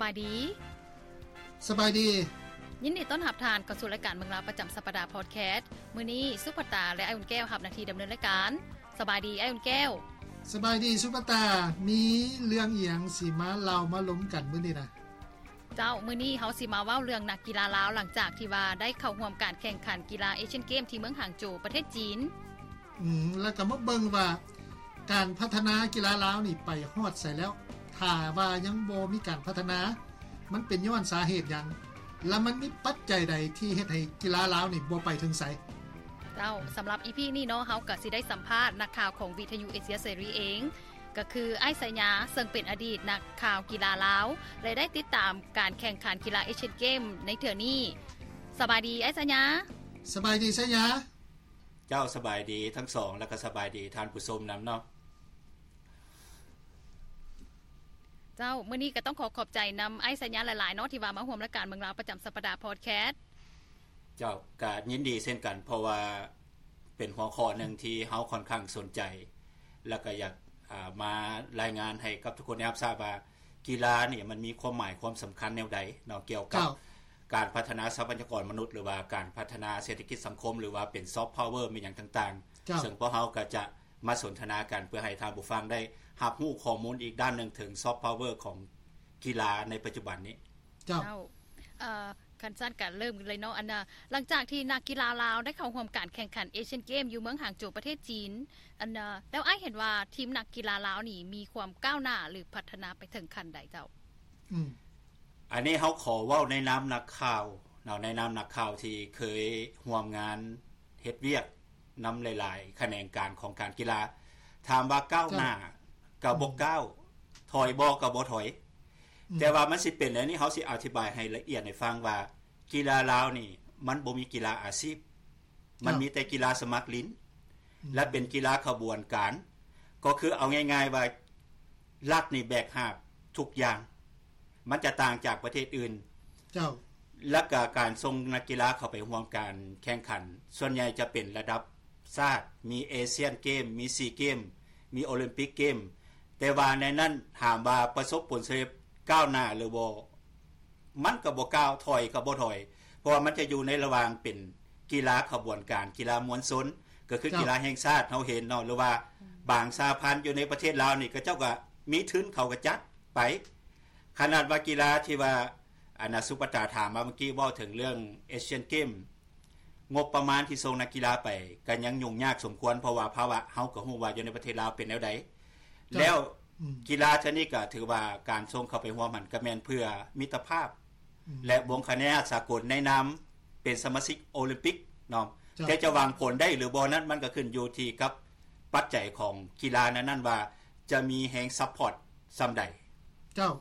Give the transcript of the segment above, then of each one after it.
ບາຍດີ. ສະບາຍດີ. ຍິນດີຕ້ອນຮັບທ່ານເຂົ້າສູ່ລາຍການເມືອງລາວປະຈຳສັບປະດາພອດແຄສ. ມື້ນີ້ສຸພັດຕາ ແລະ ອ້າຍອຸ່ນແກ້ວຮັບໜ້າທີ່ດຳເນີນລາຍການ. ສະບາຍດີ ອ້າຍອຸ່ນແກ້ວ. ສະບາຍດີສຸພັດຕາ. ມີເລື່ອງອີ່ຫຍັງຊິມາເລົ່າມາລົມກັນມື້ນີ້ນະ? ເຈົ້າ, ມື້ນີ້ເຮົາຊິມາເວົ້າເລື່ອງນັກກິລາລາວ ຫຼັງຈາກທີ່ວ່າໄດ້ເຂົ້າຮ່ວມການແຂ່ງຂັນກິລາເອຊຽນເກມທີ່ເມືອງຫາງໂຈວ ປະເທດຈີນ. ອືມ ແລ້ວກໍມາເບິ່ງວ່າການພັດທະນາກິລາລາວນີ້ໄປຮອດໃສແລ້ວ. ຖ້າວ່າຍັງບໍ່ມີການພັດທະນາ ມັນເປັນຍ້ອນສາເຫດຫຍັງ ແລະ ມັນມີປັດໄຈໃດທີ່ເຮັດໃຫ້ກິລາລາວນີ້ບໍ່ໄປເຖິງໃສ? ເຈົ້າ, ສຳລັບອີພີນີ້ເນາະ, ເຮົາກໍຊິໄດ້ສຳພາດນັກຂ່າວຂອງວິທະຍຸເອເຊຍເສລີເອງ, ກໍຄືອ້າຍໄຊຍາ ເຊິ່ງເປັນອະດີດນັກຂ່າວກິລາລາວ ແລະ ໄດ້ຕິດຕາມການແຂ່ງຂັນກິລາເອຊຽນເກມໃນເທື່ອນີ້. ສະບາຍດີ ອ້າຍໄຊຍາ. ສະບາຍດີ ໄຊຍາ. ເຈົ້າ, ສະບາຍດີທັງສອງ ແລ້ວກໍສະບາຍດີທ່ານຜູ້ຊົມນຳເນາະ. ເຈົ້າ, ມື້ນີ້ກໍຕ້ອງຂໍຂອບໃຈນຳອ້າຍໄຊຍາຫຼາຍໆເນາະ ທີ່ວ່າມາຮ່ວມລາຍການເມືອງລາວປະຈຳສັບປະດາພອດແຄສ. ເຈົ້າ, ກໍຍິນດີເຊັ່ນກັນ ເພາະວ່າເປັນຫົວຂໍ້ໜຶ່ງທີ່ເຮົາຂ້ອນຂ້າງສົນໃຈ ແລ້ວກໍຢາກ ອາ ມາລາຍງານໃຫ້ກັບທຸກຄົນໄດ້ຮັບຊາບວ່າ ກິລານີ້ມັນມີຄວາມໝາຍຄວາມສຳຄັນແນວໃດເນາະ ກ່ຽວກັບ ເຈົ້າ ການພັດທະນາຊັບພະຍາກອນມະນຸດ ຫຼືວ່າການພັດທະນາເສດຖະກິດສັງຄົມ ຫຼືວ່າເປັນຊອບພາວເວີ ແມ່ນຫຍັງຕ່າງໆ. ເຈົ້າ. ເຊິ່ງພວກເຮົາກໍຈະມາສົນທະນາກັນ ເພື່ອໃຫ້ທ່ານຜູ້ຟັງໄດ້ຮັບຮູ້ຂໍ້ມູນອີກດ້ານໜຶ່ງເຖິງຊອບພາວເວີຂອງກິລາໃນປັດຈຸບັນນີ້. ເຈົ້າ. ເຈົ້າ. ເອີ ຄັນຊັ້ນກໍເລີ່ມກັນເລີຍເນາະ. ອັນນ່າ ຫຼັງຈາກທີ່ນັກກິລາລາວໄດ້ເຂົ້າຮ່ວມການແຂ່ງຂັນເອຊຽນເກມຢູ່ເມືອງຫາງໂຈວ ປະເທດຈີນ, ອັນນ່າ ແລ້ວອ້າຍເຫັນວ່າທີມນັກກິລາລາວນີ້ມີຄວາມກ້າວໜ້າ ຫຼື ພັດທະນາໄປເຖິງຂັ້ນໃດເຈົ້າ? ອືມ ອັນນີ້ເຮົາຂໍເວົ້າໃນນາມນັກຂ່າວເນາະ, ໃນນາມນັກຂ່າວທີ່ເຄີຍຮ່ວມງານເຮັດວຽກນຳຫຼາຍໆຂະແໜງການຂອງການກິລາ. ຖາມວ່າກ້າວໜ້າ ເຈົ້າ ກໍບໍ່ ອືມ ກ້າວ, ຖອຍບໍ່ ກໍບໍ່ຖອຍ. ອືມ ແຕ່ວ່າມັນຊິເປັນແນວນີ້ ເຮົາຊິອະທິບາຍໃຫ້ລະອຽດໃຫ້ຟັງວ່າ ກິລາລາວນີ້ມັນບໍ່ມີກິລາອາຊີບ. ມັນມີແຕ່ກິລາສະໝັກຫຼິ້ນ ອືມ ແລະ ເປັນກິລາຂະບວນການ, ກໍຄືເອົາງ່າຍໆວ່າລັດນີ້ແບກຫາບທຸກຢ່າງ, ມັນຈະຕ່າງຈາກປະເທດອື່ນ. ເຈົ້າ. ແລ້ວກະການສົ່ງນັກກິລາເຂົ້າໄປຮ່ວມການແຂ່ງຂັນ ສ່ວນໃຫຍ່ຈະເປັນລະດັບຊາດ, ມີເອຊຽນເກມ, ມີຊີເກມ, ມີໂອລິມປິກເກມ, ແຕ່ວ່າໃນນັ້ນຖາມວ່າປະສົບຜົນສຳເລັດກ້າວໜ້າຫຼືບໍ່? ມັນກໍບໍ່ກ້າວ, ຖອຍກໍບໍ່ຖອຍ, ເພາະວ່າມັນຈະຢູ່ໃນລະຫວ່າງເປັນກິລາຂະບວນການ, ກິລາມວນຊົນ, ກໍຄື ເຈົ້າ ກິລາແຫ່ງຊາດເຮົາເຫັນເນາະ, ຫຼືວ່າ ອືມ ບາງສະຫະພັນຢູ່ໃນປະເທດລາວນີ້ ເຂົາເຈົ້າກໍມີທຶນ ເຂົາກໍຈັດໄປ. ຂະໜາດວ່າກິລາທີ່ວ່າ ອັນນ່າ ສຸພັດຕາຖາມມາເມື່ອກີ້ ເວົ້າເຖິງເລື່ອງເອຊຽນເກມ, ງົບປະມານທີ່ສົ່ງນັກກິລາໄປກໍຍັງຫຍຸ້ງຍາກສົມຄວນ, ເພາະວ່າພາວະເຮົາກໍຮູ້ວ່າຢູ່ໃນປະເທດລາວເປັນແນວໃດ. ເຈົ້າ. ແລ້ວ ອືມ ກິລາເທື່ອນີ້ກໍຖືວ່າການສົ່ງເຂົ້າໄປຮ່ວມຫັ້ນກໍແມ່ນເພື່ອມິດຕະພາບ ອືມ ແລະ ບົງຄະແນນສາກົນໃນນາມເປັນສະມາຊິກໂອລິມປິກເນາະ. ເຈົ້າ. ແຕ່ຈະຫວັງຜົນໄດ້ຫຼືບໍ່ນັ້ນ ມັນກໍຂຶ້ນຢູ່ທີ່ກັບປັດໄຈຂອງກິລານັ້ນໆວ່າຈະມີແຮງຊັບພອດສ່ຳໃດ. ເຈົ້າ.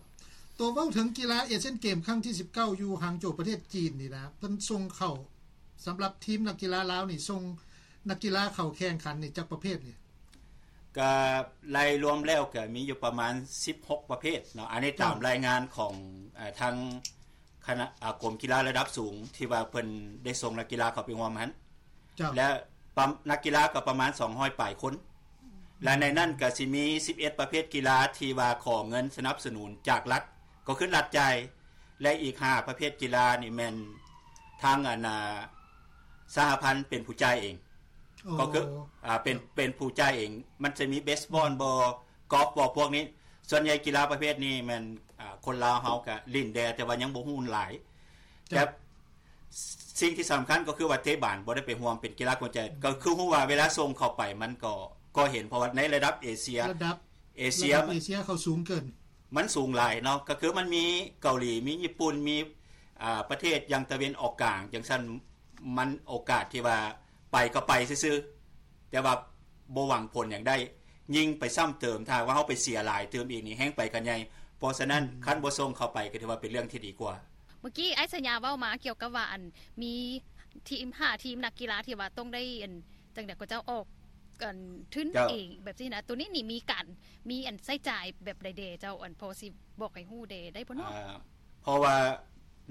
ຕົວເວົ້າເຖິງກິລາເອຊຽນເກມຄັ້ງທີສິບເກົ້າ ຢູ່ຫາງໂຈວ ປະເທດຈີນນີ້ນະ, ເພິ່ນສົ່ງເຂົ້າ ສຳລັບທີມນັກກິລາລາວນີ້ ສົ່ງນັກກິລາເຂົ້າແຂ່ງຂັນນີ້ຈັກປະເພດນີ້? ກະໄລ່ລວມແລ້ວກະມີຢູ່ປະມານສິບຫົກປະເພດເນາະ, ອັນນີ້ຕາມ ເຈົ້າ ລາຍງານຂອງ ເອີ ທາງຄະນະ ອາ ກົມກິລາລະດັບສູງ ທີ່ວ່າເພິ່ນໄດ້ສົ່ງນັກກິລາເຂົ້າໄປຮ່ວມຫັ້ນ. ເຈົ້າ. ແລະ ປະ ນັກກິລາກໍປະມານສອງຮ້ອຍປາຍຄົນ ແລະ ໃນນັ້ນກໍຊິມີສິບເອັດປະເພດກິລາທີ່ວ່າຂໍເງິນສະໜັບສະໜູນຈາກລັດ ກໍຄືລັດຈ່າຍ ແລະ ອີກຫ້າປະເພດກິລານີ້ແມ່ນທາງ ອັນນ່າ ສະຫະພັນເປັນຜູ້ຈ່າຍເອງ. ອໍ ກໍຄື ອາ ເປັນ ເປັນຜູ້ຈ່າຍເອງ. ມັນຈະມີເບສບອນບໍ ກອຟບໍ ພວກນີ້. ສ່ວນໃຫຍ່ກິລາປະເພດນີ້ແມ່ນ ອາ ຄົນລາວເຮົາກະຫຼິ້ນແດ່ ແຕ່ວ່າຍັງບໍ່ຮູ້ຫຼາຍ. ເຈົ້າ. ແຕ່ ສິ່ງທີ່ສຳຄັນກໍຄືວ່າເຕະບານບໍ່ໄດ້ໄປຮ່ວມເປັນກິລາຂວັນໃຈ ອືມ ກໍຄືຮູ້ວ່າເວລາສົ່ງເຂົ້າໄປມັນກໍ ກໍເຫັນ ເພາະວ່າໃນລະດັບເອເຊຍ ລະດັບ ເອເຊຍ ລະດັບເອເຊຍເຂົາສູງເກີນ ມັນສູງຫຼາຍເນາະ. ກໍຄືມັນມີເກົາຫຼີ ມີຍີ່ປຸ່ນ ມີ ອາ ປະເທດຢ່າງຕາເວັນອອກກາງຈັ່ງຊັ້ນ ມັນໂອກາດທີ່ວ່າໄປກໍໄປຊື່ໆ ແຕ່ວ່າບໍ່ຫວັງຜົນຫຍັງໄດ້. ຍິ່ງໄປຊ້ຳເຕີມ ຖ້າຫາກວ່າເຮົາໄປເສຍຫຼາຍຕື່ມອີກນີ້ ແຮ່ງໄປກັນໃຫຍ່. ເພາະສະນັ້ນ ອືມ ຄັນບໍ່ສົ່ງເຂົ້າໄປກໍຖືວ່າເປັນເລື່ອງທີ່ດີກວ່າ. ເມື່ອກີ້ອ້າຍໄຊຍາເວົ້າມາກ່ຽວກັບວ່າ ອັນ ມີທີມ ຫ້າທີມນັກກິລາທີ່ວ່າຕ້ອງໄດ້ ອັນ ຈັ່ງໃດກໍເຈົ້າອອກ ອັນ ທຶນ ເຈົ້າ ເອງແບບຊີ້ນະ. ໂຕນີ້ນີ້ມີການ ມີ ອັນ ໃຊ້ຈ່າຍແບບໃດແດ່ເຈົ້າ? ອັນ ພໍຊິບອກໃຫ້ຮູ້ແດ່ໄດ້ບໍ່ເນາະ? ອາ ເພາະວ່າ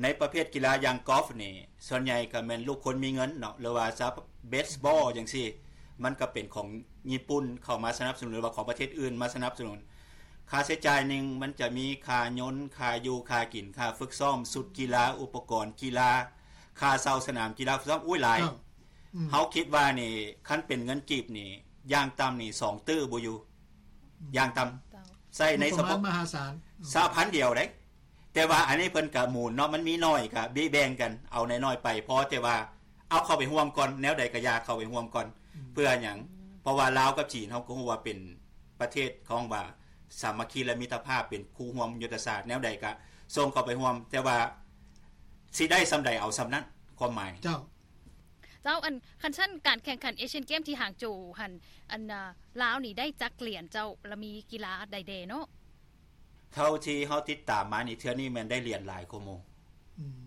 ໃນປະເພດກິລາຢ່າງກອຟນີ້ ສ່ວນໃຫຍ່ກໍແມ່ນລູກຄົນມີເງິນເນາະ ຫຼືວ່າຊາວເບສບອລຈັ່ງຊີ້ ມັນກໍເປັນຂອງຍີ່ປຸ່ນເຂົ້າມາສະໜັບສະໜູນ ຫຼືວ່າຂອງປະເທດອື່ນມາສະໜັບສະໜູນ. ຄ່າໃຊ້ຈ່າຍໜຶ່ງ ມັນຈະມີຄ່າຍົນ, ຄ່າຢູ່, ຄ່າກິນ, ຄ່າຝຶກຊ້ອມ, ຊຸດກິລາ, ອຸປະກອນກິລາ, ຄ່າເຊົ່າສະໜາມກິລາ, ຝຶກຊ້ອມ, ໂອ້ຍ ຫຼາຍ. ເຈົ້າ. ອືມ. ເຮົາຄິດວ່ານີ້ ຄັນເປັນເງິນກີບນີ້ ຢ່າງຕ່ຳນີ້ ສອງຕື້ບໍ່ຢູ່. ອືມ. ຢ່າງຕ່ຳ. ເຈົ້າ. ໃຊ້ໃນສະເພາະ ງົບປະມານມະຫາສານ. ອືມ. ສະຫະພັນດຽວເດ້. ແຕ່ວ່າອັນນີ້ເພິ່ນກະໝູນເນາະ, ມັນມີໜ້ອຍກະເບະແບ່ງກັນ ເອົາໜ້ອຍໆໄປ ພໍແຕ່ວ່າເອົາເຂົ້າໄປຮ່ວມກ່ອນ, ແນວໃດກະຢ່າເຂົ້າໄປຮ່ວມກ່ອນ. ອືມ. ເພື່ອຫຍັງ? ເພາະວ່າລາວກັບຈີນ ເຮົາກໍຮູ້ວ່າເປັນປະເທດ ເຂົາເວົ້າວ່າສາມັກຄີ ແລະ ມິດຕະພາບ ເປັນຄູ່ຮ່ວມຍຸດທະສາດ, ແນວໃດກະສົ່ງເຂົ້າໄປຮ່ວມ, ແຕ່ວ່າຊິໄດ້ສ່ຳໃດເອົາສ່ຳນັ້ນ, ຄວາມໝາຍ. ເຈົ້າ. ເຈົ້າ, ອັນ ຄັນຊັ້ນການແຂ່ງຂັນເອຊຽນເກມທີ່ຫາງໂຈຫັ້ນ ອັນ ລາວນີ້ໄດ້ຈັກຫຼຽນເຈົ້າ ລະມີກິລາໃດແດ່ເນາະ? ເທົ່າທີ່ເຮົາຕິດຕາມມານີ້ ເທື່ອນີ້ແມ່ນໄດ້ຫຼຽນຫຼາຍກວ່າໝູ່. ອືມ.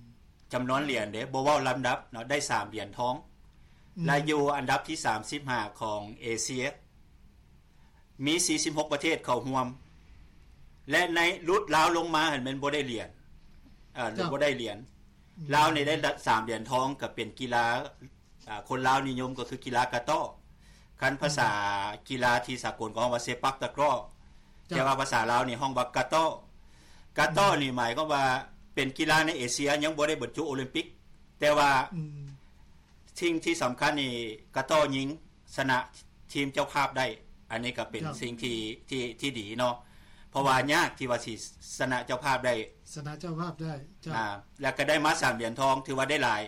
ຈຳນວນຫຼຽນເດ້ ບໍ່ເວົ້າລຳດັບເນາະ, ໄດ້ສາມຫຼຽນທອງ. ອືມ. ແລະ ຢູ່ອັນດັບທີສາມສິບຫ້າຂອງເອເຊຍ, ມີສີ່ສິບຫົກປະເທດເຂົ້າຮ່ວມ ແລະ ໃນຫຼຸດລາວລົງມາຫັ້ນແມ່ນບໍ່ໄດ້ຫຼຽນ, ເອີ ເຈົ້າ. ບໍ່ໄດ້ຫຼຽນ. ອືມ. ລາວນີ້ໄດ້ສາມຫຼຽນທອງ ກໍເປັນກິລາ ອ່າ ຄົນລາວນິຍົມກໍຄືກິລາກະຕໍ້. ຄັນພາສາ ອືມ ກິລາທີ່ສາກົນກໍຮ້ອງວ່າເຊປັກຕະກຣໍ້. ເຈົ້າ. ແຕ່ວ່າພາສາລາວນີ້ຮ້ອງວ່າກະຕໍ້. ກະຕໍ້ ອືມ ນີ້ໝາຍຄວາມວ່າເປັນກິລາໃນເອເຊຍຍັງບໍ່ໄດ້ບັນຈຸໂອລິມປິກ. ແຕ່ວ່າ ອືມ ສິ່ງທີ່ສຳຄັນນີ້ ກະຕໍ້ຍິງຊະນະທີມເຈົ້າພາບໄດ້. ອັນນີ້ກໍເປັນ ເຈົ້າ ສິ່ງທີ່ ທີ່ ທີ່ດີເນາະ. ເພາະວ່າ ອືມ ຍາກທີ່ວ່າຊິຊະນະເຈົ້າພາບໄດ້. ຊະນະເຈົ້າພາບໄດ້. ເຈົ້າ. ອ່າ ແລ້ວກໍໄດ້ມາສາມຫຼຽນທອງ ຖືວ່າໄດ້ຫຼາຍ.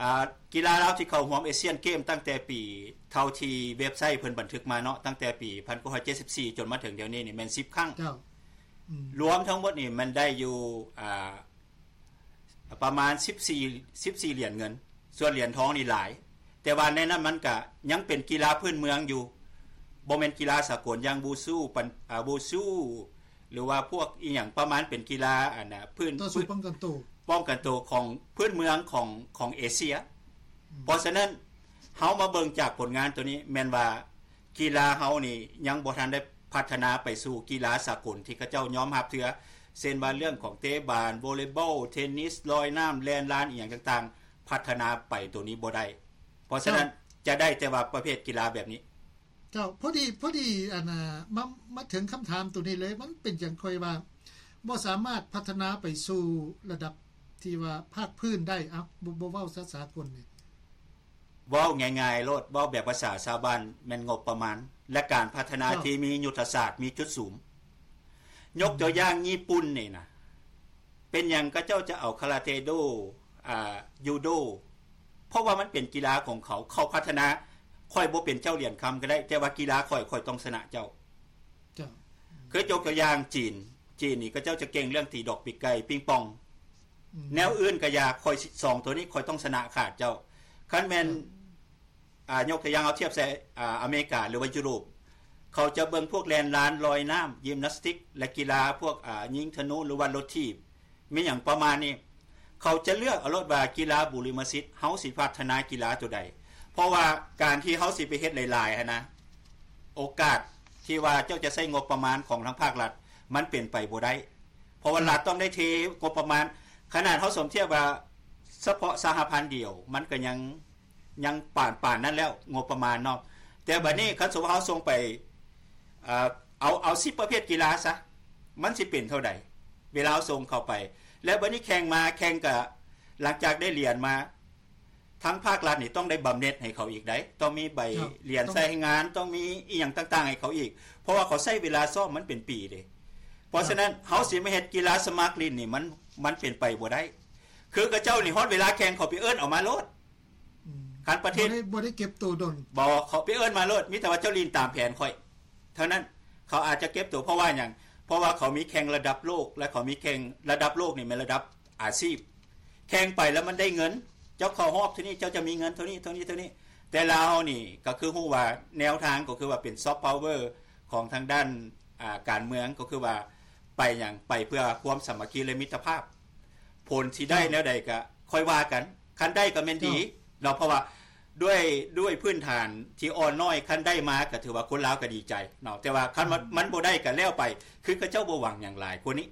ອ່າ ກິລາລາວທີ່ເຂົ້າຮ່ວມເອຊຽນເກມຕັ້ງແຕ່ປີ ເທົ່າທີ່ເວັບໄຊເພິ່ນບັນທຶກມາເນາະ, ຕັ້ງແຕ່ປີພັນເກົ້າຮ້ອຍເຈັດສິບສີ່ ຈົນມາເຖິງດຽວນີ້ນີ້ແມ່ນສິບຄັ້ງ. ເຈົ້າ. ອືມ. ລວມທັງໝົດນີ້ແມ່ນໄດ້ຢູ່ ອ່າ ປະມານສິບສີ່ ສິບສີ່ຫຼຽນເງິນ, ສ່ວນຫຼຽນທອງນີ້ຫຼາຍ. ແຕ່ວ່າໃນນັ້ນມັນກະຍັງເປັນກິລາພື້ນເມືອງຢູ່, ບໍ່ແມ່ນກິລາສາກົນຢ່າງບູຊູ ປັນ ອ່າ ບູຊູ ຫຼືວ່າພວກອີ່ຫຍັງປະມານເປັນກິລາ ອັນນ່າ ພື້ນ ຕໍ່ສູ້ປ້ອງກັນໂຕ ປ້ອງກັນໂຕຂອງພື້ນເມືອງຂອງ ຂອງເອເຊຍ. ອືມ. ເພາະສະນັ້ນ ເຮົາມາເບິ່ງຈາກຜົນງານໂຕນີ້ ແມ່ນວ່າກິລາເຮົານີ້ຍັງບໍ່ທັນໄດ້ພັດທະນາໄປສູ່ກິລາສາກົນທີ່ເຂົາເຈົ້າຍອມຮັບເທື່ອ, ເຊັ່ນວ່າເລື່ອງຂອງເຕະບານ, ວໍເລບອລ, ເທນນິສ, ລອຍນ້ຳ, ແລ່ນລານ ອີ່ຫຍັງຕ່າງໆ ພັດທະນາໄປໂຕນີ້ບໍ່ໄດ້. ເພາະສະນັ້ນ ເຈົ້າ ຈະໄດ້ແຕ່ວ່າປະເພດກິລາແບບນີ້. ເຈົ້າ, ພໍດີ ພໍດີ ອັນນ່າ ມາ ມາເຖິງຄຳຖາມໂຕນີ້ເລີຍ, ມັນເປັນຫຍັງຂ້ອຍວ່າບໍ່ສາມາດພັດທະນາໄປສູ່ລະດັບທີ່ວ່າພາກພື້ນໄດ້? ເອົ້າ ບໍ່ ບໍ່ເວົ້າສາ ສາກົນນີ້. ເວົ້າງ່າຍໆໂລດ, ເວົ້າແບບພາສາຊາວບ້ານ ແມ່ນງົບປະມານ ແລະ ການພັດທະນາ ເຈົ້າ ທີ່ມີຍຸດທະສາດ, ມີຈຸດສຸມ. ຍົກຕົວຢ່າງ ອືມ ຍີ່ປຸ່ນນີ້ນະ, ເປັນຫຍັງເຂົາເຈົ້າຈະເອົາຄາຣາເຕໂດ, ອ່າ, ຢູໂດ? ເພາະວ່າມັນເປັນກິລາຂອງເຂົາ, ເຂົາພັດທະນາ. ຂ້ອຍບໍ່ເປັນເຈົ້າຫຼຽນຄຳກໍໄດ້, ແຕ່ວ່າກິລາຂ້ອຍ, ຂ້ອຍຕ້ອງຊະນະເຈົ້າ. ເຈົ້າ. ຄືຍົກຕົວຢ່າງຈີນ, ຈີນນີ້ເຂົາເຈົ້າຈະເກັ່ງເລື່ອງຕີດອກປີກໄກ່, ປິງປອງ. ອືມ. ແນວອື່ນກໍຢ່າ, ຂ້ອຍສອງໂຕນີ້ ຂ້ອຍຕ້ອງຊະນະຂາດເຈົ້າ. ຄັນແມ່ນ ເຈົ້າ. ອ່າ ຍົກຕົວຢ່າງເອົາທຽບໃສ່ ອ່າ ອາເມລິກາ ຫຼືວ່າຢູໂຣບ, ເຂົາຈະເບິ່ງພວກແລ່ນລານ, ລອຍນ້ຳ, ຢິມນາສຕິກ ແລະ ກິລາພວກ ອ່າ ຍິງທະນູ ຫຼືວ່າລົດຖີບ, ມີຫຍັງປະມານນີ້. ເຂົາຈະເລືອກເອົາໂລດວ່າກິລາບູລິມະສິດ ເຮົາຊິພັດທະນາກິລາໂຕໃດ. ເພາະວ່າການທີ່ເຮົາຊິໄປເຮັດຫຼາຍໆຫັ້ນນະ, ໂອກາດທີ່ວ່າເຈົ້າຈະໃຊ້ງົບປະມານຂອງທາງພາກລັດ ມັນເປັນໄປບໍ່ໄດ້. ເພາະວ່າ ອືມ ລັດຕ້ອງໄດ້ເທງົບປະມານ, ຂະໜາດເຮົາສົມທຽບວ່າສະເພາະສະຫະພັນດຽວ ມັນກໍຍັງ ຍັງປານ ປານນັ້ນແລ້ວ ງົບປະມານເນາະ. ແຕ່ບັດນີ້ ອືມ ຄັນສົມມຸດເຮົາສົ່ງໄປ ເອີ ເອົາ ເອົາສິບປະເພດກິລາຊະ, ມັນຊິເປັນເທົ່າໃດ ເວລາເຮົາສົ່ງເຂົ້າໄປ? ແລ້ວບັດນີ້ແຂ່ງມາ ແຂ່ງກະ ຫຼັງຈາກໄດ້ຫຼຽນມາ ທາງພາກລັດນີ້ຕ້ອງໄດ້ບຳເນັດໃຫ້ເຂົາອີກໃດ໋, ຕ້ອງມີໃບ ເຈົ້າ ຫຼຽນໃຊ້ງານ, ຕ້ອງມີອີ່ຫຍັງຕ່າງໆໃຫ້ເຂົາອີກ, ເພາະວ່າເຂົາໃຊ້ເວລາຊ້ອມມັນເປັນປີເດ້. ເພາະສະນັ້ນ ເຈົ້າ ເຮົາຊິມາເຮັດກິລາສະໝັກຫຼິ້ນນີ້ ມັນ ມັນເປັນໄປບໍ່ໄດ້. ຄືເຂົາເຈົ້ານີ້ ຮອດເວລາແຂ່ງ ເຂົາໄປເອີ້ນເອົາມາໂລດ. ອືມ ຄັນປະເທດ ບໍ່ໄດ້ ບໍ່ໄດ້ເກັບໂຕດົນ. ບໍ່, ເຂົາໄປເອີ້ນມາໂລດ, ມີແຕ່ວ່າເຈົ້າຫຼິ້ນຕາມແຜນຂ້ອຍເທົ່ານັ້ນ. ເຂົາອາດຈະເກັບໂຕ ເພາະວ່າຫຍັງ? ເພາະວ່າເຂົາມີແຂ່ງລະດັບໂລກ ແລະ ເຂົາມີແຂ່ງລະດັບໂລກນີ້ແມ່ນລະດັບອາຊີບ. ແຂ່ງໄປແລ້ວມັນໄດ້ເງິນ, ເຈົ້າເຂົ້າຮອບເທົ່ານີ້ ເຈົ້າຈະມີເງິນເທົ່ານີ້ ເທົ່ານີ້ ເທົ່ານີ້. ແຕ່ລາວເຮົານີ້ກໍຄືຮູ້ວ່າແນວທາງກໍຄືວ່າເປັນຊອບພາວເວີຂອງທາງດ້ານ ອ່າ ການເມືອງ ກໍຄືວ່າໄປຫຍັງ? ໄປເພື່ອຄວາມສາມັກຄີ ແລະ ມິດຕະພາບ. ຜົນຊິໄດ້ ເຈົ້າ ແນວໃດກໍຄ່ອຍວ່າກັນ, ຄັນໄດ້ກໍແມ່ນດີ ເຈົ້າ ເນາະ, ເພາະວ່າດ້ວຍ ດ້ວຍພື້ນຖານທີ່ອ່ອນນ້ອຍ ຄັນໄດ້ມາກໍຖືວ່າຄົນລາວກໍດີໃຈເນາະ, ແຕ່ວ່າຄັນມັນ ອືມ ມັນບໍ່ໄດ້ກໍແລ້ວໄປ, ຄືເຂົາເຈົ້າບໍ່ຫວັງຫຍັງຫຼາຍກວ່ານີ້.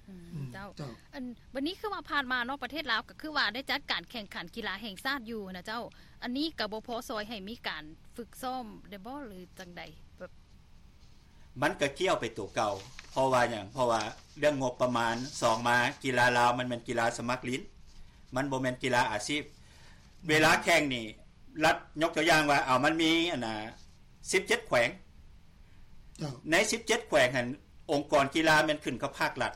ອືມ ອືມ ເຈົ້າ ເຈົ້າ. ອັນ ບັດນີ້ຄືວ່າຜ່ານມາເນາະ ປະເທດລາວກໍຄືວ່າໄດ້ຈັດການແຂ່ງຂັນກິລາແຫ່ງຊາດຢູ່ນະເຈົ້າ, ອັນນີ້ກໍບໍ່ພໍຊ່ອຍໃຫ້ມີການຝຶກຊ້ອມໄດ້ບໍ່ ຫຼື ຈັ່ງໃດ? ແບບ ມັນກໍກ້ຽວໄປໂຕເກົ່າ. ເພາະວ່າຫຍັງ? ເພາະວ່າເລື່ອງງົບປະມານ. ສອງມາ ກິລາລາວມັນແມ່ນກິລາສະໝັກຫຼິ້ນ, ມັນບໍ່ແມ່ນກິລາອາຊີບ. ເວລາແຂ່ງນີ້ ລັດ ຍົກຕົວຢ່າງວ່າ ເອົາ ມັນມີອັນນ່າ ສິບເຈັດແຂວງ. ເຈົ້າ. ໃນສິບເຈັດແຂວງຫັ້ນ ອົງກອນກິລາແມ່ນຂຶ້ນກັບພາກລັດ.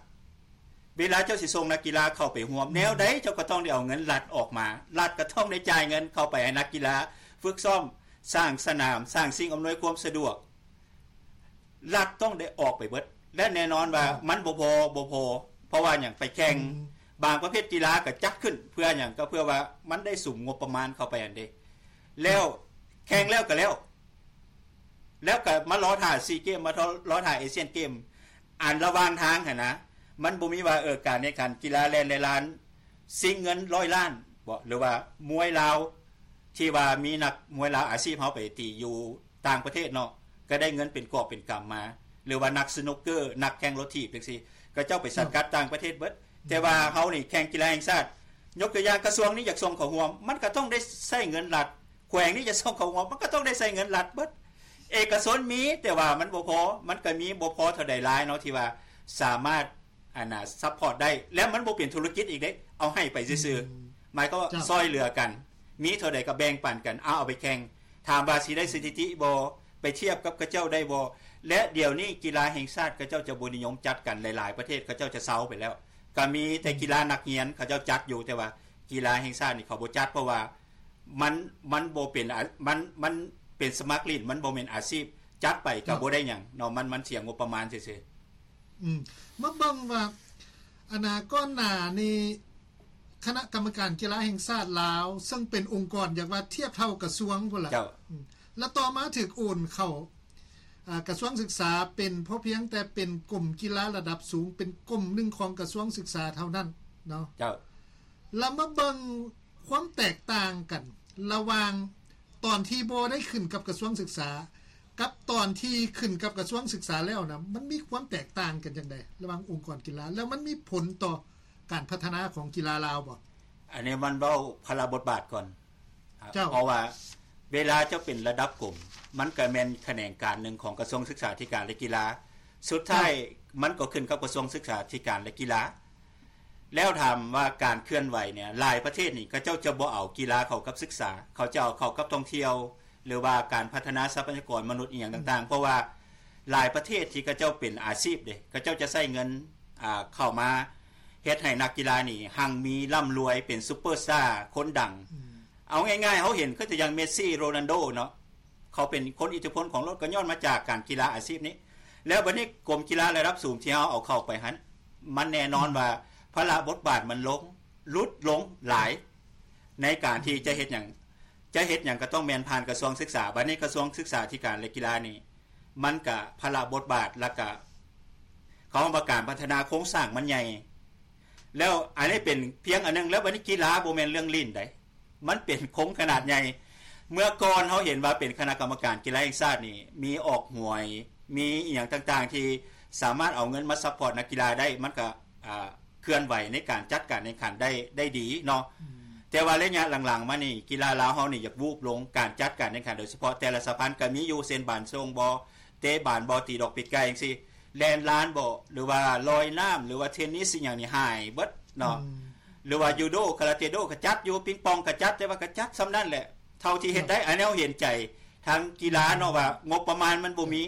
ເວລາເຈົ້າຊິສົ່ງນັກກິລາເຂົ້າໄປຮ່ວມ ແນວໃດເຈົ້າກໍຕ້ອງໄດ້ເອົາເງິນລັດອອກມາ, ລັດກໍຕ້ອງໄດ້ຈ່າຍເງິນເຂົ້າໄປໃຫ້ນັກກິລາຝຶກຊ້ອມ, ສ້າງສະໜາມ, ສ້າງສິ່ງອຳນວຍຄວາມສະດວກ. ລັດຕ້ອງໄດ້ອອກໄປເບິດ ແລະ ແນ່ນອນວ່າ ເຈົ້າ ມັນບໍ່ພໍ ບໍ່ພໍ. ເພາະວ່າຫຍັງ? ໄປແຂ່ງ ອືມ ບາງປະເພດກິລາກໍຈັດຂຶ້ນເພື່ອຫຍັງ? ກໍເພື່ອວ່າມັນໄດ້ສຸມງົບປະມານເຂົ້າໄປຫັ້ນເດ້. ແລ້ວແຂ່ງແລ້ວກໍແລ້ວ ແລ້ວກໍມາລໍຖ້າຊີເກມ ມາລໍຖ້າເອຊຽນເກມ. ອັນລະຫວ່າງທາງຫັ້ນນະ ມັນບໍ່ມີວ່າ ເອີ ການແຂ່ງຂັນກິລາແລ່ນລາຍລ້ານ ຊິງເງິນຮ້ອຍລ້ານບໍ ຫຼືວ່າມວຍລາວ ທີ່ວ່າມີນັກມວຍລາວອາຊີບເຮົາໄປຕີຢູ່ຕ່າງປະເທດເນາະ ກໍໄດ້ເງິນເປັນກອບເປັນກຳມາ ຫຼືວ່ານັກສະໜຸກເກີ ນັກແຂ່ງລົດຖີບຈັ່ງຊີ້ ເຂົາເຈົ້າໄປສັງກັດຕ່າງປະເທດເບິດ. ແຕ່ວ່າເຮົານີ້ແຂ່ງກິລາແຫ່ງຊາດ ຍົກຕົວຢ່າງ ກະຊວງນີ້ຢາກສົ່ງເຂົ້າຮ່ວມ ມັນກໍຕ້ອງໄດ້ໃຊ້ເງິນລັດ, ແຂວງນີ້ຈະສົ່ງເຂົ້າຮ່ວມ ມັນກໍຕ້ອງໄດ້ໃຊ້ເງິນລັດເບິດ. ເອກະຊົນມີ ແຕ່ວ່າມັນບໍ່ພໍ, ມັນກໍມີບໍ່ພໍເທົ່າໃດຫຼາຍເນາະ ທີ່ວ່າສາມາດ ອັນນ່າ ຊັບພອດໄດ້ ແລະ ມັນບໍ່ເປັນທຸລະກິດອີກເດ້ ເອົາໃຫ້ໄປຊື່ໆ. ອືມ ໝາຍຄວາມວ່າ ເຈົ້າ ຊ່ອຍເຫຼືອກັນ ມີເທົ່າໃດກໍແບ່ງປັນກັນ ເອົາ ເອົາໄປແຂ່ງ. ຖາມວ່າຊິໄດ້ສະຖິຕິບໍ່? ໄປທຽບກັບເຂົາເຈົ້າໄດ້ບໍ່? ແລະ ດຽວນີ້ກິລາແຫ່ງຊາດເຂົາເຈົ້າຈະບໍ່ນິຍົມຈັດກັນ ຫຼາຍໆປະເທດເຂົາເຈົ້າຈະເຊົາໄປແລ້ວ. ກໍມີແຕ່ ອືມ ກິລານັກຮຽນເຂົາເຈົ້າຈັດຢູ່ ແຕ່ວ່າກິລາແຫ່ງຊາດນີ້ເຂົາບໍ່ຈັດ ເພາະວ່າມັນ ມັນບໍ່ເປັນອາ ມັນ ມັນເປັນສະໝັກຫຼິ້ນ ມັນບໍ່ແມ່ນອາຊີບ ຈັດໄປກໍ ເຈົ້າ ບໍ່ໄດ້ຫຍັງເນາະ ມັນ ມັນເສຍງົບປະມານຊື່ໆ. ອືມ ມາເບິ່ງວ່າ ອັນນ່າ ກ່ອນໜ້ານີ້ ຄະນະກຳມະການກິລາແຫ່ງຊາດລາວ ເຊິ່ງເປັນອົງກອນ ຢາກວ່າທຽບເທົ່າກະຊວງພຸ້ນລະ ເຈົ້າ ອືມ ແລ້ວຕໍ່ມາຖືກໂອນເຂົ້າ ອາ ກະຊວງສຶກສາ ເປັນ ພໍພຽງແຕ່ເປັນກົມກິລາລະດັບສູງ ເປັນກົມໜຶ່ງຂອງກະຊວງສຶກສາເທົ່ານັ້ນເນາະ ເຈົ້າ. ລະມາເບິ່ງຄວາມແຕກຕ່າງກັນລະຫວ່າງຕອນທີ່ບໍ່ໄດ້ຂຶ້ນກັບກະຊວງສຶກສາ ກັບຕອນທີ່ຂຶ້ນກັບກະຊວງສຶກສາແລ້ວນະ ມັນມີຄວາມແຕກຕ່າງກັນຈັ່ງໃດລະຫວ່າງອົງກອນກິລາ ແລ້ວມັນມີຜົນຕໍ່ການພັດທະນາຂອງກິລາລາວບໍ່? ອັນນີ້ມັນເວົ້າພາລະບົດບາດກ່ອນ ເຈົ້າ ເພາະວ່າເວລາເຈົ້າເປັນລະດັບກົມ ມັນກໍແມ່ນຂະແໜງການໜຶ່ງຂອງກະຊວງສຶກສາທິການ ແລະ ກິລາ ສຸດທ້າຍ ເຈົ້າ ມັນກໍຂຶ້ນກັບກະຊວງສຶກສາທິການ ແລະ ກິລາ. ແລ້ວຖາມວ່າການເຄື່ອນໄຫວເນ່ຍ ຫຼາຍປະເທດນີ້ ເຂົາເຈົ້າຈະບໍ່ເອົາກິລາເຂົ້າກັບສຶກສາ ເຂົາຈະເອົາເຂົ້າກັບທ່ອງທ່ຽວ ຫຼືວ່າການພັດທະນາຊັບພະຍາກອນມະນຸດ ອີ່ຫຍັງຕ່າງໆ ອືມ ເພາະວ່າຫຼາຍປະເທດທີ່ເຂົາເຈົ້າເປັນອາຊີບເດ້ ເຂົາເຈົ້າຈະໃຊ້ເງິນ ອ່າ ເຂົ້າມາເຮັດໃຫ້ນັກກິລານີ້ຮັ່ງມີລ່ຳລວຍ ເປັນຊຸບເປີສະຕາ ຄົນດັງ ອືມ ເອົາງ່າຍໆ ເຮົາເຫັນຄືຕົວຢ່າງເມດຊີ ໂຣນັນໂດເນາະ ເຂົາເປັນຄົນອິດທິພົນຂອງໂລກ ກໍຍ້ອນມາຈາກການກິລາອາຊີບນີ້ ແລ້ວບັດນີ້ກົມກິລາລະດັບສູງທີ່ເຮົາເອົາເຂົ້າໄປຫັ້ນ ມັນແນ່ນອນ ອືມ ວ່າພາລະບົດບາດມັນລົງ ຫຼຸດລົງຫຼາຍ ໃນການທີ່ຈະເຮັດຫຍັງ ຈະເຮັດຫຍັງກໍຕ້ອງແມ່ນຜ່ານກະຊວງສຶກສາ ບັດນີ້ກະຊວງສຶກສາທິການ ແລະ ກິລານີ້ ມັນກະພາລະບົດບາດ ແລ້ວກະ ເຂົາເວົ້າວ່າການພັດທະນາໂຄງສ້າງມັນໃຫຍ່ ແລ້ວອັນນີ້ເປັນພຽງອັນໜຶ່ງ ແລ້ວບັດນີ້ກິລາບໍ່ແມ່ນເລື່ອງຫຼິ້ນໃດ ມັນເປັນໂຄງຂະໜາດໃຫຍ່. ເມື່ອກ່ອນເຮົາເຫັນວ່າເປັນຄະນະກຳມະການກິລາແຫ່ງຊາດນີ້ ມີອອກຫວຍ ມີອີ່ຫຍັງຕ່າງໆ ທີ່ສາມາດເອົາເງິນມາຊັບພອດນັກກິລາໄດ້ ມັນກະ ອ່າ ເຄື່ອນໄຫວໃນການຈັດການແຂ່ງຂັນໄດ້ ໄດ້ດີເນາະ ອືມ ແຕ່ວ່າໄລຍະຫຼັງໆມານີ້ ກິລາລາວເຮົານີ້ຢາກວູບລົງ ການຈັດການແຂ່ງຂັນ ໂດຍສະເພາະແຕ່ລະສະຫະພັນກໍມີຢູ່ ເຊັ່ນ ບານສົ່ງບໍ ເຕະບານບໍ ຕີດອກປີກໄກ່ຈັ່ງຊີ້ ແລ່ນລານບໍ ຫຼືວ່າລອຍນ້ຳ ຫຼືວ່າເທນນິສ ອີ່ຫຍັງນີ້ຫາຍເບິດເນາະ ອືມ ຫຼືວ່າຢູໂດ ຄາຣາເຕໂດ ກໍຈັດຢູ່ ປິງປອງກໍຈັດ ແຕ່ວ່າກໍຈັດສ່ຳນັ້ນແຫຼະ ເທົ່າທີ່ເຮັດໄດ້ ເຈົ້າ ອັນນີ້ເຮົາເຫັນໃຈທາງກິລາເນາະ ອືມ ວ່າງົບປະມານມັນບໍ່ມີ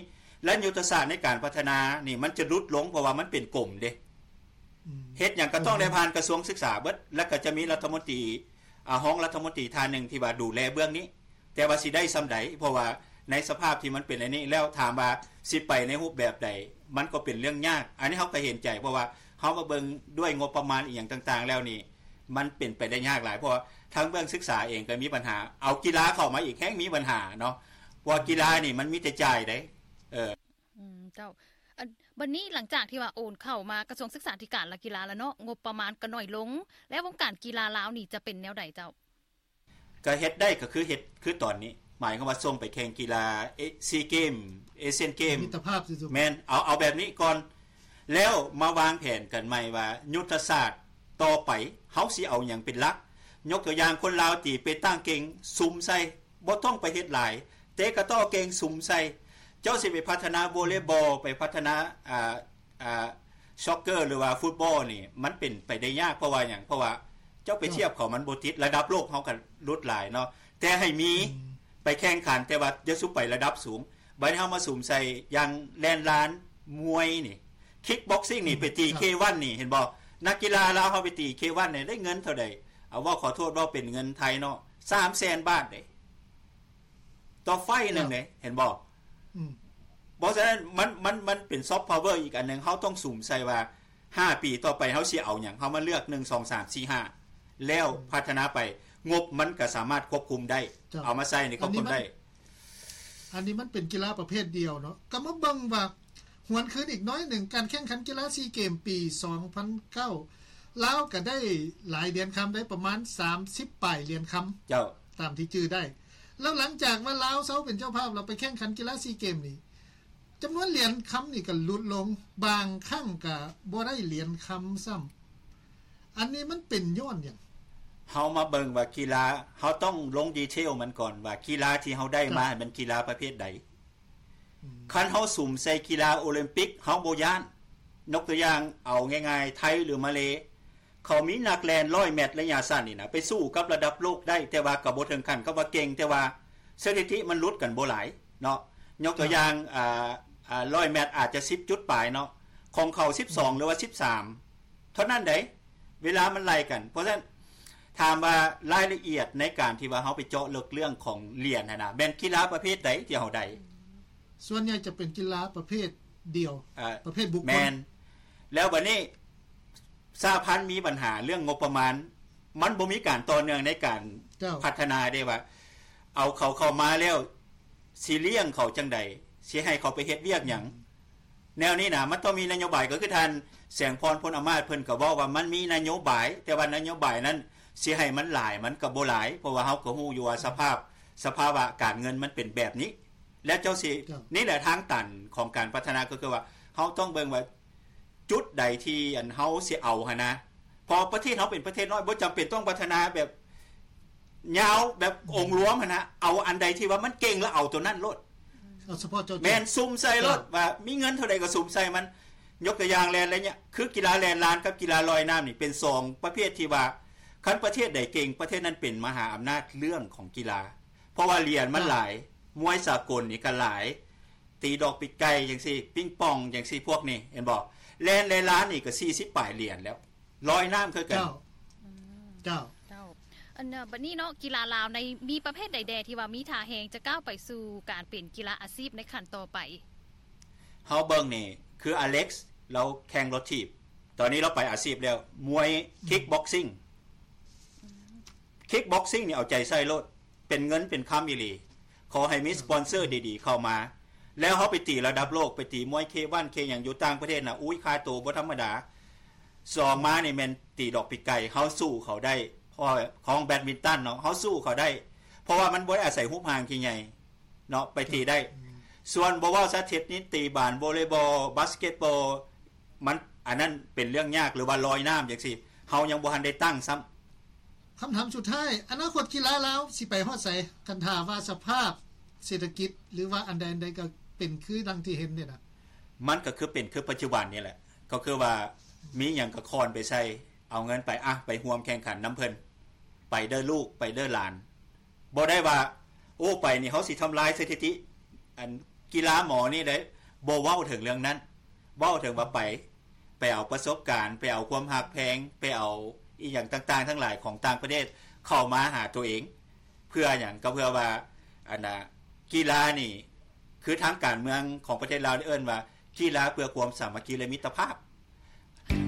ແລະ ຍຸດທະສາດໃນການພັດທະນານີ້ມັນຈະຫຼຸດລົງ ເພາະວ່າມັນເປັນກົມເດ້ ອືມ ເຮັດຫຍັງກໍຕ້ອງໄດ້ ອືມ ຜ່ານກະຊວງສຶກສາເບິດ ແລ້ວກໍຈະມີລັດຖະມົນຕີ ອາ ຮອງລັດຖະມົນຕີທ່ານໜຶ່ງທີ່ວ່າດູແລເບື້ອງນີ້ ແຕ່ວ່າຊິໄດ້ສ່ຳໃດ ເພາະວ່າໃນສະພາບທີ່ມັນເປັນອັນນີ້ແລ້ວ ຖາມວ່າຊິໄປໃນຮູບແບບໃດ ມັນກໍເປັນເລື່ອງຍາກ. ອັນນີ້ເຮົາກໍເຫັນໃຈ ເພາະວ່າເຮົາມາເບິ່ງດ້ວຍງົບປະມານອີ່ຫຍັງຕ່າງໆແລ້ວນີ້ ມັນເປັນໄປໄດ້ຍາກຫຼາຍ ເພາະວ່າທາງເບື້ອງສຶກສາເອງກໍມີບັນຫາ ເອົາກິລາເຂົ້າມາອີກແຮ່ງມີບັນຫາເນາະ ເພາະວ່າກິລານີ້ມັນມີແຕ່ຈ່າຍເດ້ ເອີ ອືມ ເຈົ້າ ອັນ ບັດນີ້ຫຼັງຈາກທີ່ວ່າໂອນເຂົ້າມາກະຊວງສຶກສາທິການ ແລະ ກິລາແລ້ວເນາະ ງົບປະມານກໍໜ້ອຍລົງ ແລ້ວວົງການກິລາລາວນີ້ຈະເປັນແນວໃດເຈົ້າ? ກໍເຮັດໄດ້ກໍຄືເຮັດຄືຕອນນີ້ ໝາຍຄວາມວ່າສົ່ງໄປແຂ່ງກິລາເອ ຊີເກມ ເອຊຽນເກມ ມິດຕະພາບຊື່ໆ ແມ່ນ ເອົາ ເອົາແບບນີ້ກ່ອນ ແລ້ວມາວາງແຜນກັນໃໝ່ວ່າຍຸດທະສາດຕໍ່ໄປເຮົາຊິເອົາຫຍັງເປັນຫຼັກ ຍົກຕົວຢ່າງ ຄົນລາວຕີເປຕັງເກັ່ງ ສຸມໃສ່ ບໍ່ຕ້ອງໄປເຮັດຫຼາຍ ເຕະກະຕໍ້ເກັ່ງ ສຸມໃສ່ ເຈົ້າຊິໄປພັດທະນາໂວເລບອລ ໄປພັດທະນາ ອ່າ ອ່າ ຊັອກເກີ ຫຼືວ່າຟຸດບອລນີ້ ມັນເປັນໄປໄດ້ຍາກ. ເພາະວ່າຫຍັງ? ເພາະວ່າເຈົ້າໄປທຽບເຂົາ ມັນບໍ່ຕິດ. ລະດັບໂລກເຮົາກໍຫຼຸດຫຼາຍເນາະ ແຕ່ໃຫ້ມີ ອືມ ໄປແຂ່ງຂັນ ແຕ່ວ່າຢ່າສູ່ໄປລະດັບສູງ. ບັດນີ້ເຮົາມາສຸມໃສ່ຢ່າງແລ່ນລານ ມວຍນີ້ ຄິກບັອກຊິງນີ້ ອືມ ໄປຕີ ເຄວັນນີ້ ເຫັນບໍ່? ນັກກິລາລາວເຮົາໄປຕີ ເຄວັນນີ້ ໄດ້ເງິນເທົ່າໃດ? ເອົາ ເວົ້າ ຂໍໂທດ ເວົ້າເປັນເງິນໄທເນາະ ສາມແສນບາດເດ້ ຕໍ່ໄຟໜຶ່ງເດ້ ເຫັນບໍ່? ອືມ ເພາະສະນັ້ນ ມັນ ມັນ ມັນເປັນຊອບພາວເວີອີກອັນໜຶ່ງ. ເຮົາຕ້ອງສຸມໃສ່ວ່າ ຫ້າປີຕໍ່ໄປເຮົາຊິເອົາຫຍັງ? ເຮົາມາເລືອກ ໜຶ່ງ ສອງ ສາມ ສີ່ ຫ້າ ແລ້ວ ອືມ ພັດທະນາໄປ ງົບມັນກໍສາມາດຄວບຄຸມໄດ້ ເຈົ້າ ເອົາມາໃຊ້ໃນຄວບຄຸມໄດ້. ອັນນີ້ມັນ ອັນນີ້ມັນເປັນກິລາປະເພດດຽວເນາະ. ກໍມາເບິ່ງວ່າ ຫວນຄືນອີກໜ້ອຍໜຶ່ງ, ການແຂ່ງຂັນກິລາຊີເກມປີສອງພັນເກົ້າ ລາວກໍໄດ້ຫຼາຍຫຼຽນຄຳໄດ້ປະມານສາມສິບປາຍຫຼຽນຄຳ ເຈົ້າ ຕາມທີ່ຈື່ໄດ້. ແລ້ວຫຼັງຈາກວ່າລາວເຊົາເປັນເຈົ້າພາບ ແລ້ວໄປແຂ່ງຂັນກິລາຊີເກມນີ້ ຈຳນວນຫຼຽນຄຳນີ້ກໍຫຼຸດລົງ, ບາງຄັ້ງກໍບໍ່ໄດ້ຫຼຽນຄຳຊ້ຳ. ອັນນີ້ມັນເປັນຍ້ອນຫຍັງ? ເຮົາມາເບິ່ງວ່າກິລາ, ເຮົາຕ້ອງລົງດີເທວມັນກ່ອນວ່າກິລາທີ່ເຮົາໄດ້ມາ ເຈົ້າ ແມ່ນກິລາປະເພດໃດ. ອືມ ຄັນເຮົາສຸມໃສ່ກິລາໂອລິມປິກ ເຮົາບໍ່ຢ້ານ. ຍົກຕົວຢ່າງເອົາງ່າຍໆ ໄທ ຫຼື ມາເລ ເຂົາມີນັກແລ່ນຮ້ອຍແມັດໄລຍະສັ້ນນີ້ນະ ໄປສູ້ກັບລະດັບໂລກໄດ້, ແຕ່ວ່າກໍບໍ່ເຖິງຂັ້ນກັບວ່າເກັ່ງ, ແຕ່ວ່າສະຖິຕິມັນຫຼຸດກັນບໍ່ຫຼາຍເນາະ. ຍົກຕົວຢ່າງ ອ່າ ອ່າ ຮ້ອຍແມັດອາດຈະສິບຈຸດປາຍເນາະ, ຂອງເຂົາສິບສອງ ອືມ ຫຼືວ່າສິບສາມເທົ່ານັ້ນໃດ໋, ເວລາມັນໄລ່ກັນ. ເພາະສະນັ້ນ ຖາມວ່າລາຍລະອຽດໃນການທີ່ວ່າເຮົາໄປເຈາະເລິກເລື່ອງຂອງຫຼຽນຫັ້ນນະ ແມ່ນກິລາປະເພດໃດທີ່ເຮົາໄດ້? ສ່ວນໃຫຍ່ຈະເປັນກິລາປະເພດດຽວ ເອີ ປະເພດບຸກຄົນ. ແມ່ນ. ແລ້ວບັດນີ້ ສະຫະພັນມີບັນຫາເລື່ອງງົບປະມານ, ມັນບໍ່ມີການຕໍ່ເນື່ອງໃນການ ເຈົ້າ ພັດທະນາເດ້ ວ່າເອົາເຂົາເຂົ້າມາແລ້ວ ຊິລ້ຽງເຂົາຈັ່ງໃດ, ຊິໃຫ້ເຂົາໄປເຮັດວຽກຫຍັງ? ອືມ ແນວນີ້ນະ ມັນຕ້ອງມີນະໂຍບາຍ. ກໍຄືທ່ານແສງພອນ ພົນອາມາດ ເພິ່ນກໍເວົ້າວ່າມັນມີນະໂຍບາຍ, ແຕ່ວ່ານະໂຍບາຍນັ້ນ ຊິໃຫ້ມັນຫຼາຍ ມັນກໍບໍ່ຫຼາຍ, ເພາະວ່າເຮົາກໍຮູ້ຢູ່ວ່າສະພາບ ສະພາວະການເງິນມັນເປັນແບບນີ້. ແລ້ວເຈົ້າຊິ ເຈົ້າ ນີ້ແຫຼະທາງຕັນຂອງການພັດທະນາ ກໍຄືວ່າເຮົາຕ້ອງເບິ່ງວ່າ ຈຸດໃດທີ່ ອັນ ເຮົາຊິເອົາຫັ້ນນະ, ເພາະປະເທດເຮົາເປັນປະເທດນ້ອຍ ບໍ່ຈຳເປັນຕ້ອງພັດທະນາແບບຍາວ ແບບ ອືມ ອົງລວມຫັ້ນນະ, ເອົາອັນໃດທີ່ວ່າມັນເກັ່ງ ແລ້ວເອົາຕົວນັ້ນໂລດ. ເອົາສະເພາະເຈາະຈົງ. ແມ່ນ, ສຸມໃສ່ໂລດ ເຈົ້າ ວ່າມີເງິນເທົ່າໃດກໍສຸມໃສ່ມັນ. ຍົກຕົວຢ່າງແລ່ນໄລຍະ ຄືກິລາແລ່ນລານກັບກິລາລອຍນ້ຳນີ້ ເປັນສອງປະເພດທີ່ວ່າ ຄັນປະເທດໃດເກັ່ງ ປະເທດນັ້ນເປັນມະຫາອຳນາດເລື່ອງຂອງກິລາ, ເພາະວ່າຫຼຽນມັນ ເຈົ້າ ຫຼາຍ, ມວຍສາກົນນີ້ກໍຫຼາຍ. ຕີດອກປີກໄກ່ຈັ່ງຊີ້ ປິງປອງຈັ່ງຊີ້ ພວກນີ້ ເຫັນບໍ່? ແລ່ນ ແລ່ນລານນີ້ກໍສີ່ສິບປາຍຫຼຽນແລ້ວ, ລອຍນ້ຳຄືກັນ. ເຈົ້າ ອືມ ເຈົ້າ ເຈົ້າ. ອັນ ບັດນີ້ເນາະ ກິລາລາວໃນ ມີປະເພດໃດແດ່ທີ່ວ່າມີທ່າແຮງຈະກ້າວໄປສູ່ການເປັນກິລາອາຊີບໃນຂັ້ນຕໍ່ໄປ? ເຮົາເບິ່ງນີ້ ຄືອາເລັກ ລາວແຂ່ງລົດຖີບ, ຕອນນີ້ລາວໄປອາຊີບແລ້ວ, ມວຍ ອືມ ຄິກບັອກຊິງ. ອືມ ຄິກບັອກຊິງນີ້ເອົາໃຈໃສ່ໂລດ, ເປັນເງິນເປັນຄຳອີ່ຫຼີ. ຂໍໃຫ້ມີ ເອີ ສະປອນເຊີດີໆເຂົ້າມາ ແລ້ວເຮົາໄປຕີລະດັບໂລກ, ໄປຕີມວຍເຄວັນເຄຫຍັງຢູ່ຕ່າງປະເທດນະ, ອຸ້ຍ ຄ່າໂຕບໍ່ທຳມະດາ. ສອງມານີ້ແມ່ນຕີດອກປີກໄກ່, ເຮົາສູ້ເຂົາໄດ້, ເພາະຂອງແບດມິນຕັນເນາະ, ເຮົາສູ້ເຂົາໄດ້ ເພາະວ່າມັນບໍ່ໄດ້ອາໄສຮູບຮ່າງທີ່ໃຫຍ່ເນາະ, ໄປຕີໄດ້. ອືມ ສ່ວນບໍ່ເວົ້າຊະ ເທັດນິດ, ຕີບານ, ໂວເລບອລ, ບາສເກັດບອລ, ມັນ ອັນນັ້ນເປັນເລື່ອງຍາກ, ຫຼືວ່າລອຍນ້ຳຈັ່ງຊີ້ ເຮົາຍັງບໍ່ທັນໄດ້ຕັ້ງຊ້ຳ. ຄຳຖາມສຸດທ້າຍ, ອະນາຄົດກິລາລາວຊິໄປຮອດໃສ? ຄັນຖ້າວ່າສະພາບເສດຖະກິດ ຫຼືວ່າອັນໃດອັນໃດກໍເປັນຄືດັ່ງທີ່ເຫັນນີ້ນະ. ມັນກໍຄືເປັນຄືປັດຈຸບັນນີ້ແຫຼະ, ກໍຄືວ່າມີຫຍັງກໍຄອນໄປໃສ່, ເອົາເງິນໄປ, ອະ, ໄປຮ່ວມແຂ່ງຂັນນຳເພິ່ນ, ໄປເດີລູກ, ໄປເດີຫຼານ. ບໍ່ໄດ້ວ່າ ໂອ້ ໄປນີ້ເຮົາຊິທຳລາຍສະຖິຕິ ອັນ ກິລາໝໍນີ້ເດ້, ບໍ່ເວົ້າເຖິງເລື່ອງນັ້ນ. ເວົ້າເຖິງວ່າໄປ, ໄປເອົາປະສົບການ, ໄປເອົາຄວາມຮັກແພງ, ໄປເອົາອີ່ຫຍັງຕ່າງໆທັງຫຼາຍຂອງຕ່າງປະເທດເຂົ້າມາຫາຕົວເອງ. ເພື່ອຫຍັງ? ກໍເພື່ອວ່າ ອັນນະ ກິລານີ້ ຄືທາງການເມືອງຂອງປະເທດລາວໄດ້ເອີ້ນວ່າ ກິລາເພື່ອຄວາມສາມັກຄີ ແລະ ມິດຕະພາບ.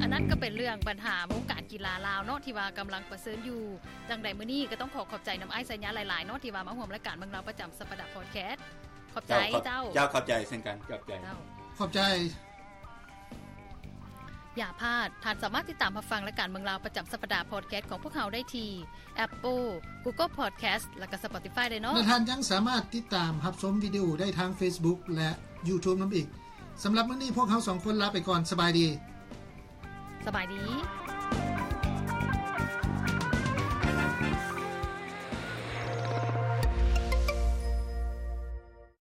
ອັນນັ້ນກໍເປັນເລື່ອງບັນຫາວົງການກິລາລາວເນາະ ທີ່ວ່າກຳລັງປະເຊີນຢູ່. ຈັ່ງໃດມື້ນີ້ກໍຕ້ອງຂໍຂອບໃຈນຳອ້າຍໄຊຍະຫຼາຍໆເນາະ ທີ່ວ່າມາຮ່ວມລາຍການເມືອງລາວປະຈຳສັບປະດາພອດແຄສ. ຂອບໃຈເຈົ້າ. ເຈົ້າ ຂອບໃຈເຊັ່ນກັນ. ຂອບໃຈ. ເຈົ້າ ຂອບໃຈ. ຢ່າພາດ, ທ່ານສາມາດຕິດຕາມຮັບຟັງລາຍການເມືອງລາວປະຈຳສັບປະດາພອດແຄສຂອງພວກເຮົາໄດ້ທີ່ Apple, Google Podcast ແລະ ກໍ Spotify ໄດ້ເນາະ. ແລະ ທ່ານຍັງສາມາດຕິດຕາມຮັບຊົມວິດີໂອໄດ້ທາງ Facebook ແລະ YouTube ນຳອີກ. ສຳລັບມື້ນີ້ພວກເຮົາສອງຄົນລາໄປກ່ອນ. ສະບາຍດີ. ສະບາຍດີ.